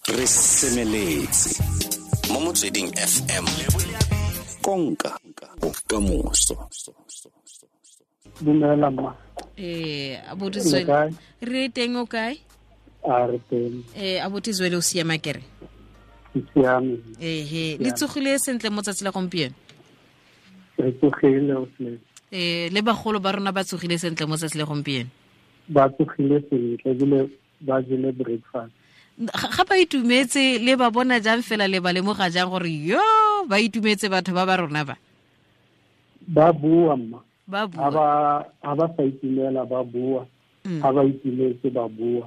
Re semeletse mo Motsweding FM, konka bokamoso. Dumela mma. Abuti Zwele, re teng, o kae? A re teng. Abuti Zwele, o siama kere? Ke siame. Ehe, le tsogile sentle mo tsatsi la gompieno? Re tsogile o tle. Le bagolo ba rona ba tsogile sentle mo tsatsi la gompieno? Ba tsogile sentle ebile ba jele breakfast. Ga ba itumetse, le ba bona jang fela, le ba lemoga jang gore yo ba itumetse batho ba ba rona ba? Ba bua mma. Ba bua. Ha ba sa itumela ba bua. Ha ba itumetse ba bua.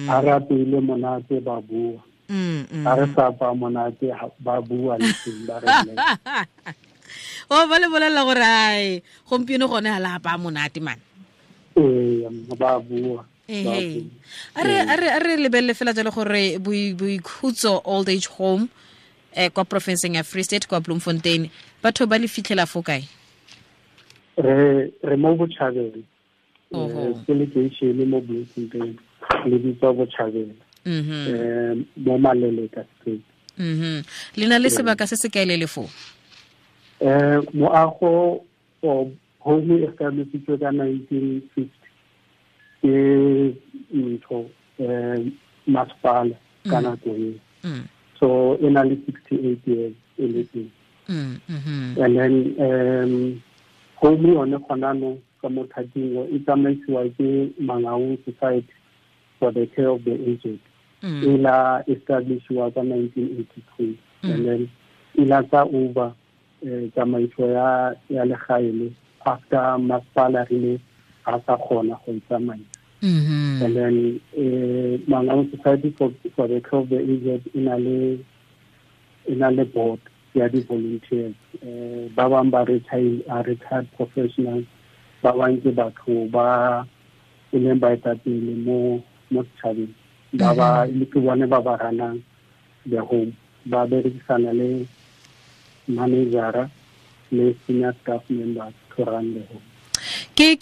Ha re apeile monate ba bua. Ha re sa apaya monate ba bua le teng ba re bolella. O ba le bolella gore ai gompieno gone ha la apaya monate man. Ee, ba bua. A re lebelele fela jalo gore Boikhutso Old Age Home kwa provinceng ya Free State kwa Bloemfontein, batho ba le fitlhela fo kae? Re mo Bochabela. Ke lekeishene mo Bloemfontein, le bitswa Bochabela. Mo Maleleka Street. Le na le sebaka se se kae le le foo? Moago o home e establisitswe ka 1950 ke ntho masepala ka nako eo. So e na le 68 years e le teng. And then home yone gona no ka mo thating e tsamaisiwa ke Mangaung Society for the Care of the Aged. E la establishiwa ka 1982. And then e la tsa over tsamaiso ya legae le after masepala rile a sa kgona go itsamaisa. And then Mangaung Society for the Care of the Aged e na le board ya di-volunteers. Ba bang ba retired professionals, ba bang ke batho ba e leng baetapele mo setšhabeng, ba ba le ke bone ba ba ranang the home, ba berekisana le managera le senior staff members to run the home. Ke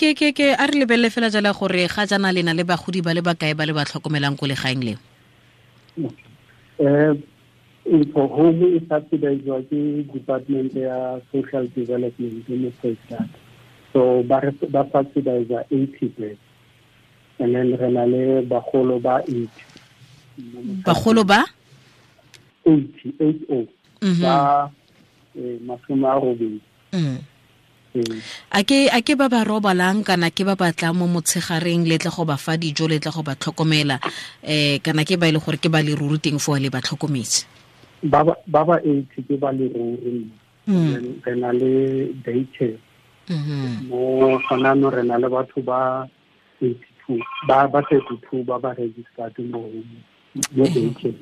a re lebelele fela jala gore ga jana lena le bagodi ba le bakae ba le ba tlhokomelang ko legaeng leo? Ntho home e subsidizwa ke Department ya Social Development mo Free State. So ba subsidize 80 beds. And then re na le bagolo ba 80. Bagolo ba? 80, 80. Ba 80. A ke ba ba robalang kana ke ba batlang mo motshegareng le tla go ba fa dijo le tla go ba tlhokomela, kana ke ba ile gore ke ba le ruri teng fo le ba tlhokometse? Ba ba 80 ke ba le ruri. Re na le daycare. Mo gona no re na le batho ba 82 ba 32 ba ba registered mo daycare.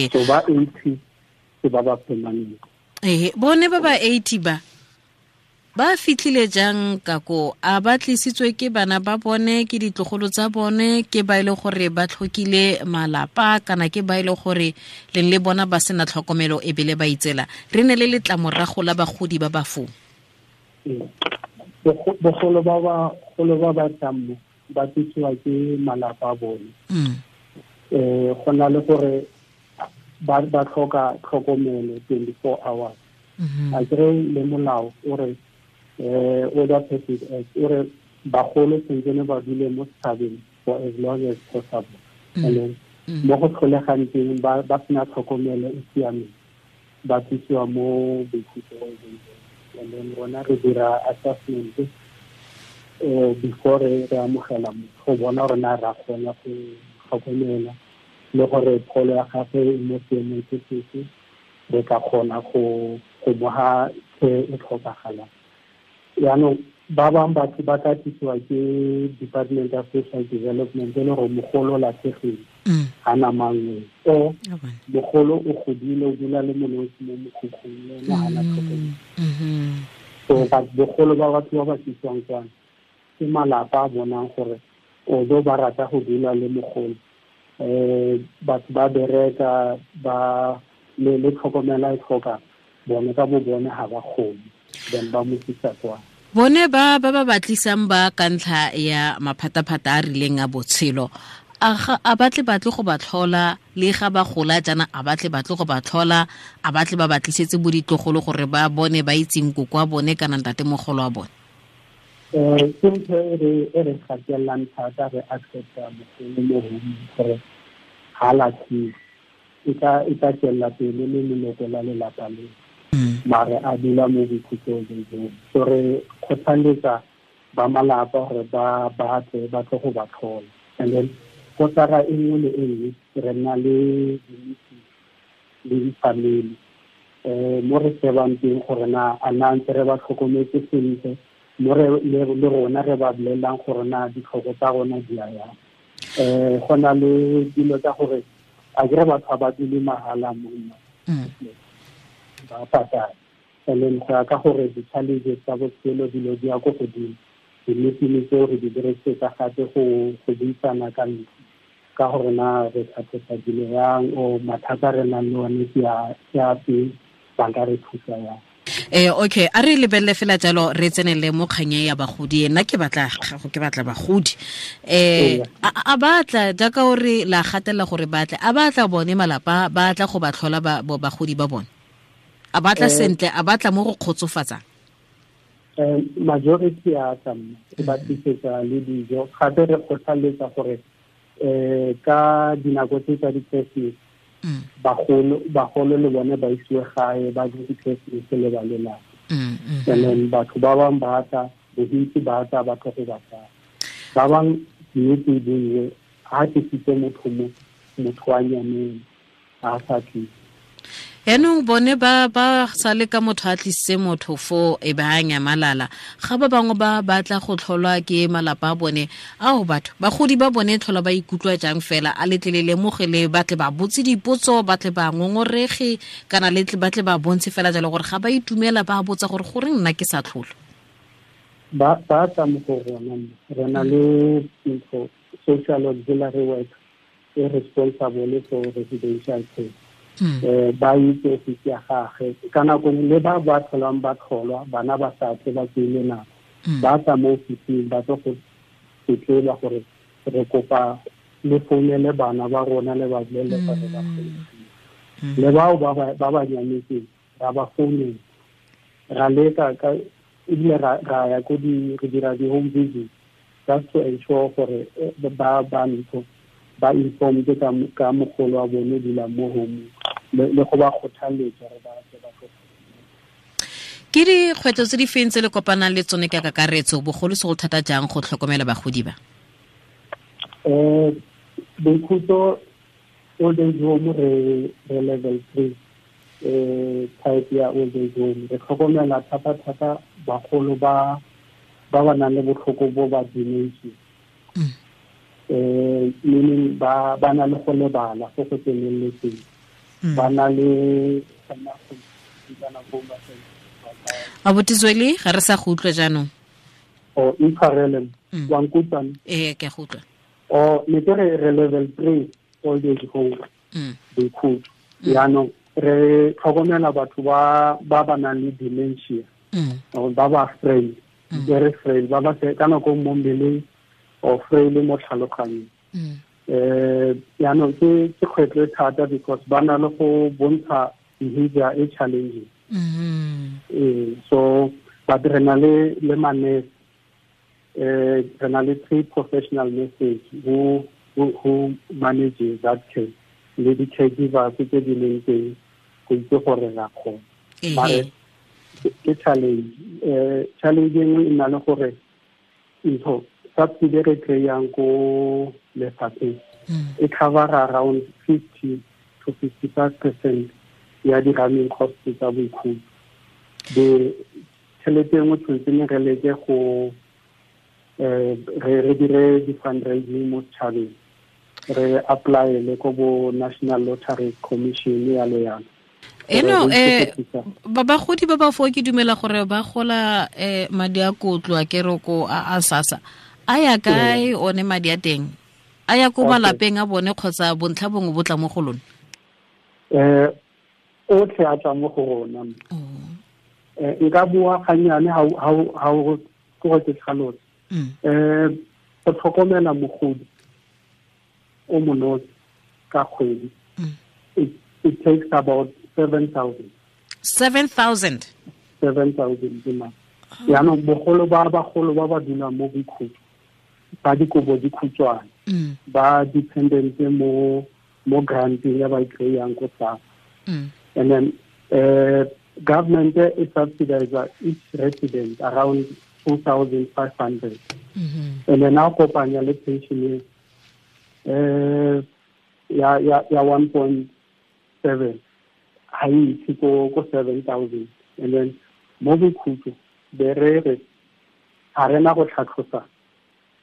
So ba 80 ke ba ba permanent. Bone ba ba 80 ba fitlhile jang ka ko? A ba tlisitswe ke bana ba bone, ke ditlogolo tsa bone, ke ba ile gore ba tlhokile malapa, kana ke ba ile gore leng le bona ba sena tlhokomelo e bile ba itsela? Re ne le letlamorago la bagodi ba ba foo. Bogolo ba ba tlang mo ba tlisiwa ke malapa a bone. Go na le gore ba tlhoka tlhokomelo 24 hours. A kere le molao o re Older Persons Act o re bagolo tshwanetse ba dule mo setšhabeng for as long as possible. And then mo go tlholegang teng ba sena tlhokomelo e siameng, ba tlisiwa mo Boikhutso. And then rona re dira assessment before re amogela motho go bona gore na ra kgona go tlhokomela le gore pholo ya gagwe e mo seemong se sefe, re ka kgona go mo ha care e tlhokagalang. Yaanong ba bangwe batho ba tla tlisiwa ke Department of Social Development e le gore mogolo o latlhegile, ga na mangwe, o mogolo o godile o dula le monosi mo mokhukhung le ena ga na tlhokomelo. So bogolo ba batho ba ba tlisiwang kwana ke malapa a bonang gore although ba rata go dula le mogolo, batho ba bereka ba le tlhokomela e tlhoka bone ka bo bone ga ba kgone, then ba mo tlisa kwa. Bone ba ba batlisang ba ka ntlha ya maphataphata a rileng a botshelo, A batle batle go ba tlhola le ga ba gola jaana, a batle batle go ba tlhola, a batle ba batlisetse bo ditlogolo gore ba bone ba itseng koko wa bone kana ntatemogolo wa bone? Ke ntho e re gatelang thata, re accepta mogolo mo home gore ga latlhiwe, e tla tswelela pele le leloko la lelapa le, mare a dula mo boikhutsong jo. So re kgothaletsa ba malapa gore ba batle ba tle go ba tlhola. And then kotara e nngwe le e nngwe re nna le di-meeting le di-family, mo re shebang teng gore na a na ntse re ba tlhokometse sentle, mo re le rona re ba bolelelang gore na ditlhoko tsa rona di a yang. Go na le dilo tsa gore a kere batho ba dule mahala monna ba patala, and then go ya ka gore di-challenges tsa botshelo dilo di ya ko godimo, di-meeting tseo re di dirisetsa gape go buisana ka ntlo ka gore na re tlhatlhosa dilo yang, o mathata re nang le one ke a fe, ba ka re thusa yang. Okay, a re lebelele fela jalo re tsenele mo kganye ya bagodi. Nna ke batla gago, ke batla bagodi. A batla jaaka o re la gatela gore batle, a batla bone malapa, ba tla go ba tlhola bagodi ba bone, a batla sentle, a batla mo go kgotsofatsang? Majority a tla re ba tlisetsa le dijo, gape re kgothaletsa gore ka dinako tse tsa di-Christmas bagolo le bone ba isiwe gae ba je di-Christmas le ba lelapa. And then batho ba bangwe ba tla, bontsi ba tla ba tlo go ba tsaya. Ba bangwe nnete e bue, ha tlisitse motho mo, motho wa nyameng a sa tlise. Yaanong bone ba sale ka motho a tlisitse motho fo e ba nyamalala, ga ba bangwe ba batla go tlholwa ke malapa a bone. Ao batho bagodi ba bone tlhola ba ikutlwa jang fela? A letle le lemogele, ba tle ba botse dipotso, ba tle ba ngongorege, kana letle ba tle ba bontshe fela jalo gore ga ba itumela, ba botsa gore goreng nna ke sa tlholo? Ba tla mo go rona, re na le ntho social auxiliary work e responsible for residential care. Ba itse ofisi ya gagwe ka nako le ba ba tlholang ba tlholwa, bana ba sa tle ba tsele nako, ba tla mo ofising ba tlo go tletleba gore re kopa le founele bana ba rona le ba bolelele gore ba founele. Le bao ba ba nyametseng ra ba founela, ra leka ka ebile ra ya ko di re dira di-home visit just to ensure gore ba ba ntho ba informed ka mogolo wa bone dula mo home, le go ba kgothaletsa gore ba tle ba tlo. Ke dikgwetlho tse di feng tse le kopanang le tsone ka kakaretso, bogolosegolo thata jang go tlhokomela bagodi ba? Boikhutso old age home re level 3 type ya old age home. Re tlhokomela thata-thata bagolo ba ba nang le botlhoko bo ba dementia. Meaning ba na le go lebala go go tseneletseng, ba na le Abuti Zweli, ga re sa go utlwa jaanong. O intshwarele, wa nkutlwa? Ee, ke a go utlwa. O ne ke re level 3 old age home boikhutso. Jaanong re tlhokomela batho ba ba nang le dementia, ba ba frail, very frail, ba ba ka nako mo mmeleng or frail mo tlhaloganyong. Jaanong ke kgwetlho e thata because ba na le go bontsha behavior e challenging. So but re na le manese, re na le 3 professional nurses who manages that care, le di-caregivers tse di leng teng go itse gore ra kgona. Mare ke challenge. Challenge e nngwe e nna le gore ntho subsidy re kry-ang ko lefapheng e cover around 50 to 55% ya di-running costs tsa boikhutso. The tšhelete e nngwe tshwanetse ne re leke go re dire di-fundraising mo setšhabeng, re apply-ele ko bo National Lottery Commission yalo yalo. Eno bagodi ba ba fo ke dumela gore ba gola madi a kotlo a keroko a SASSA a ya kae one madi a teng? A ya ko malapeng a bone kgotsa bontlha bongwe bo tla mo go lona? Otlhe a tla mo go rona. Nka bua gannyane ha o ke go ke tlhalose. Go tlhokomela mogodi o monosi ka kgwedi, it takes about 7,000. 7,000? 7,000 ke madi. Yaanong bogolo ba bagolo ba ba dulang mo Boikhutso, ba dikobo dikhutshwane, ba dependent mo granteng ya ba e kry-ang ko SASSA. And then government e subsidize each resident around 2,500. And then now kopanya le pension ya 1.7 ha e itse ko 7,000. And then mo Boikhutso be re re ga rena go tlhatlhosa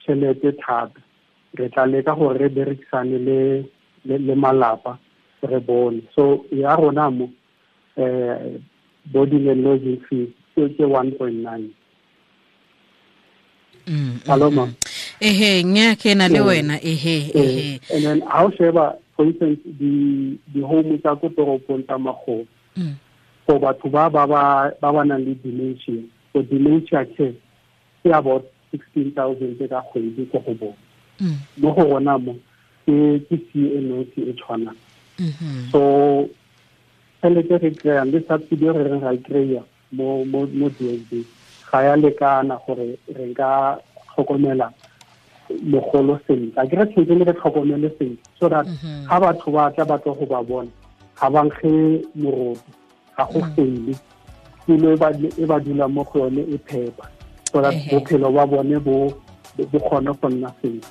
tšhelete thata, re tla leka gore re berekisane le malapa re bone. So ya rona mo boarding and lodging fees ke 1.9. Hello, ma'am. Ehe, nya ke na le wena, ehe. And then how sheba, for instance, the home tsa ko toropong tsa magolo, for batho ba ba nang le dementia, so dementia care ke about 16,000 ka kgwedi ko go bone. Mo go rona mo ke CNOC e tshwanang. So tšhelete re kry-ang le subsidy re reng ra e kry-a mo DSD ga ya lekana gore re nka tlhokomela mogolo sentle. A ke re tshwanetse re tlhokomele sentle so that ga batho ba tla ba tlo go ba bona ga ba nkge moroto, ga go fele tulo e ba dulang mo go yone e phepa, so that bophelo ba bone bo kgone go nna sentle.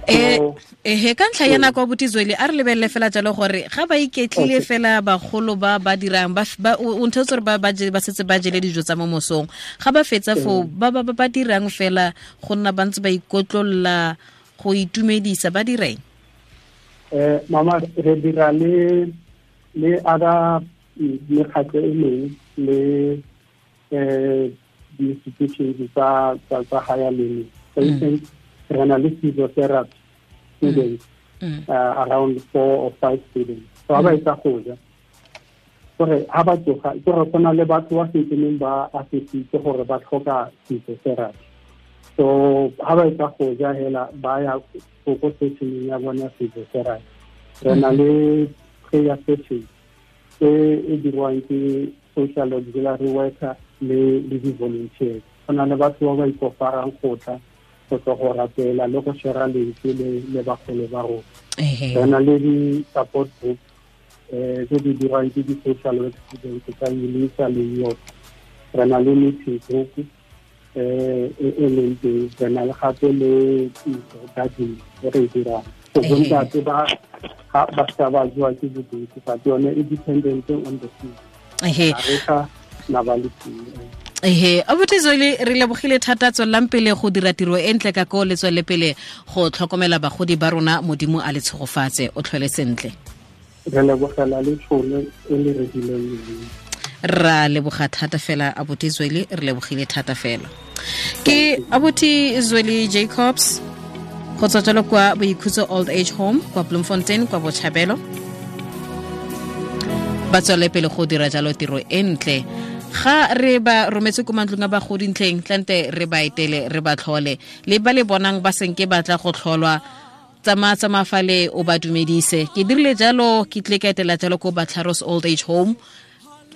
Ehe, ka ntlha ya nako abuti Zweli, a re lebelele fela jalo gore ga ba iketlile fela bagolo ba ba dirang ba o nthetse gore ba setse ba jele dijo tsa mo mosong, ga ba fetsa foo ba ba dirang fela go nna ba ntse ba ikotlolla go itumedisa, ba direng? Mama, re dira le other mekgatlho e mengwe le di-institutions tsa higher learning. For instance, re na le physiotherapy students, around 4 or 5 students. So ha ba etsa go ja, gore ha ba tsoga, ke gore go na le batho ba sentseneng ba assessitse gore ba tlhoka physiotherapy. So ha ba etsa go ja hela ba ya ko sessioneng ya bona physiotherapy. Re na le prayer session e dirwang ke social auxiliary worker le di-volunteers. Go na le batho ba ba ikoparang go tla go tlo go rapela le go share lentswe le bagolo ba rona. Re na le di-support group tse di dirwang ke di-social work students tsa UNISA le UOP. Re na le meeting group e leng teng. Re na le gape le garden e re e dirang. So bontate ba sa ba jewa ke bodutu, but yone e dependent on the season. Re sa na ba le Ehe, abuti Zweli, re lebogile thata, tswelelang pele go dira tiro e ntle ka ko, le tswelele pele go tlhokomela bagodi ba rona, Modimo a le tshegofatse, o tlhole sentle. Re lebogela le tšhono e le re dileng yone. Ra leboga thata fela abuti Zweli, re lebogile thata fela. Ke abuti Zweli Jacobs go tswa jalo kwa Boikhutso Old Age Home kwa Bloemfontein kwa Botshabelo. Ba tswelele pele go dira jalo tiro e ntle. Ga re ba rometse ko mantlong a bagodi ntleng, tlante re ba etele, re ba tlhole, le ba le bonang ba senke ba tla go tlholwa, tsamaya fale o ba dumedise. Ke dirile jalo, ke tle ka etela jalo ko Batlharos Old Age Home,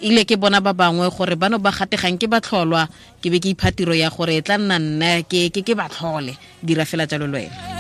ile ke bona ba bangwe gore bano ba gategang ke ba tlholwa, ke be ke ipha tiro ya gore e tla nna nna ke ba tlhole. Dira fela jalo le wena.